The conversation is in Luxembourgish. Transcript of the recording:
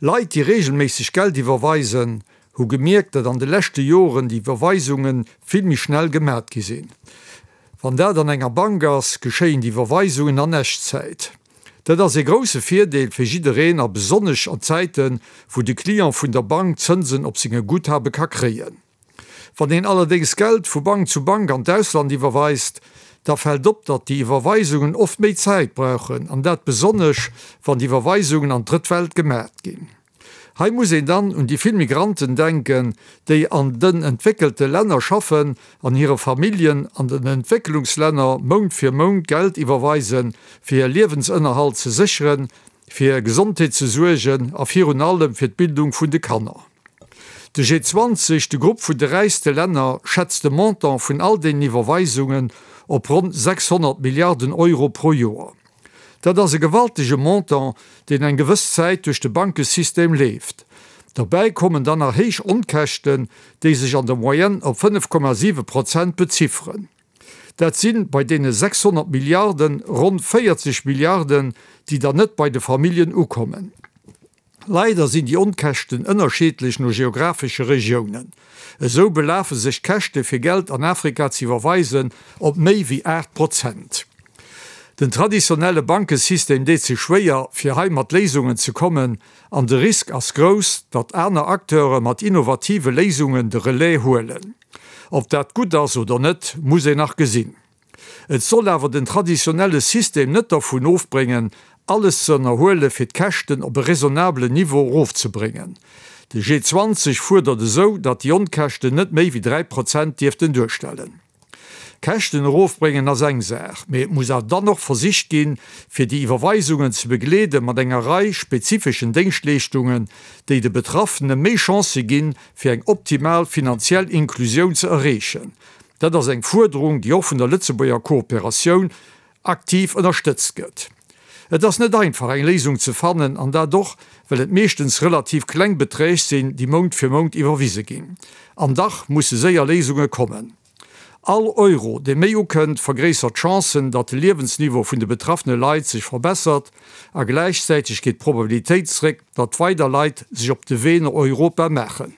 Leit, déi reegelméisseg Geld iwwerweisen, hu gemierkt, datt an de leschte Joren déi Iwwerweisunge vill méi schnell gemat gi sinn. Wann dat an enger Bank ass, geschéien déi Iwwerweisungen an Echtzäit. Dat ass ee grousse Virdeel fir jiddereen a besonnesch an Zäiten, wou de Client vun der Bank Zënsen op senge Guthabe ka kréien. Wann een allerdéngs Geld vu Bank zu Bank an d'Ausland iwwerweist, da fält op, datt déi Iwwerweisungen oft méi Zäit brauchen, an dat besonnesch, wann d'Iwwerweisungen an d'Drëtt Welt gemat ginn. Hei muss een dann un déi vill Migranten denken, déi an den entwéckelte Länner schaffen an hire Familljen an den Entwécklungslänner Mount fir Mount Geld iwwerweisen, fir hir Liewensënnerhalt ze sécheren, fir hir Gesondheet ze suergen a virun allem fir d'Bildung vun de Kanner. De G20, de Grupp vun de räichste Länner, schätzt de Montant vun all deenen Iwwerweisungen op ronn 600 Milliarden Euro pro Joer. Dat ass e gewaltege Montant, deen eng gewëss Zäit duerch de Bankesystem leeft. Derbäi kommen dann nach héich Onkäschten, déi sech an der Moyenne op 5,7 Prozent bezifferen. Dat si bei deene 600 Milliarden ronn 40 Milliarden, déi dann net bei de Familljen ukommen. Leider sinn déi Onkäschten ënnerscheedlech no geographesche Regiounen. Esou belafe sech d'Käschte fir Geld an Afrika ze iwwerweisen op méi wéi 8 Prozent. Den traditionelle Bankesystem deet sech schwéier, fir hei mat Léisungen ze kommen an de Risk ass grouss, datt aner Acteure mat innovative Léisungen de Relais huelen. Ob dat gutt ass oder net, muss een nach gesinn. Et soll awer den traditionelle System net dervun ofbréngen, alles ze ënnerhuele fir d'Käschten op e raisonnabelen Niveau erofzebréngen. De G20 fuerdert esou, datt déi Onkäschten net méi wéi 3 Prozent dierften duerstellen. Käschten erofbréngen ass eng Saach, mee et muss awer dann och versicht ginn, fir déi Iwwerweisungen ze begleede mat enger Rei spezifeschen Déngschtleeschtungen, déi de Betraffene méi Chancë ginn, fir eng optimal finanziell Inklusioun ze erreechen. Dat ass eng Fuerderung, déi och vun der Lëtzebuerger Kooperatioun aktiv ënnerstëtzt gëtt. Et ass net einfach, eng Léisung ze fannen, an dat och, well et meeschtens relativ kleng Beträg sinn, déi Mount fir Mount iwwerwise ginn. An dach musse séier Léisunge kommen. All Euro, dee méi ukënnt, vergréissert d'Chancen, datt de Liewensniveau vun de betraffene Leit sech verbessert, a gläichzäiteg geet d'Probabilitéit zréck, datt weider Leit sech op de Wee no Europa maachen.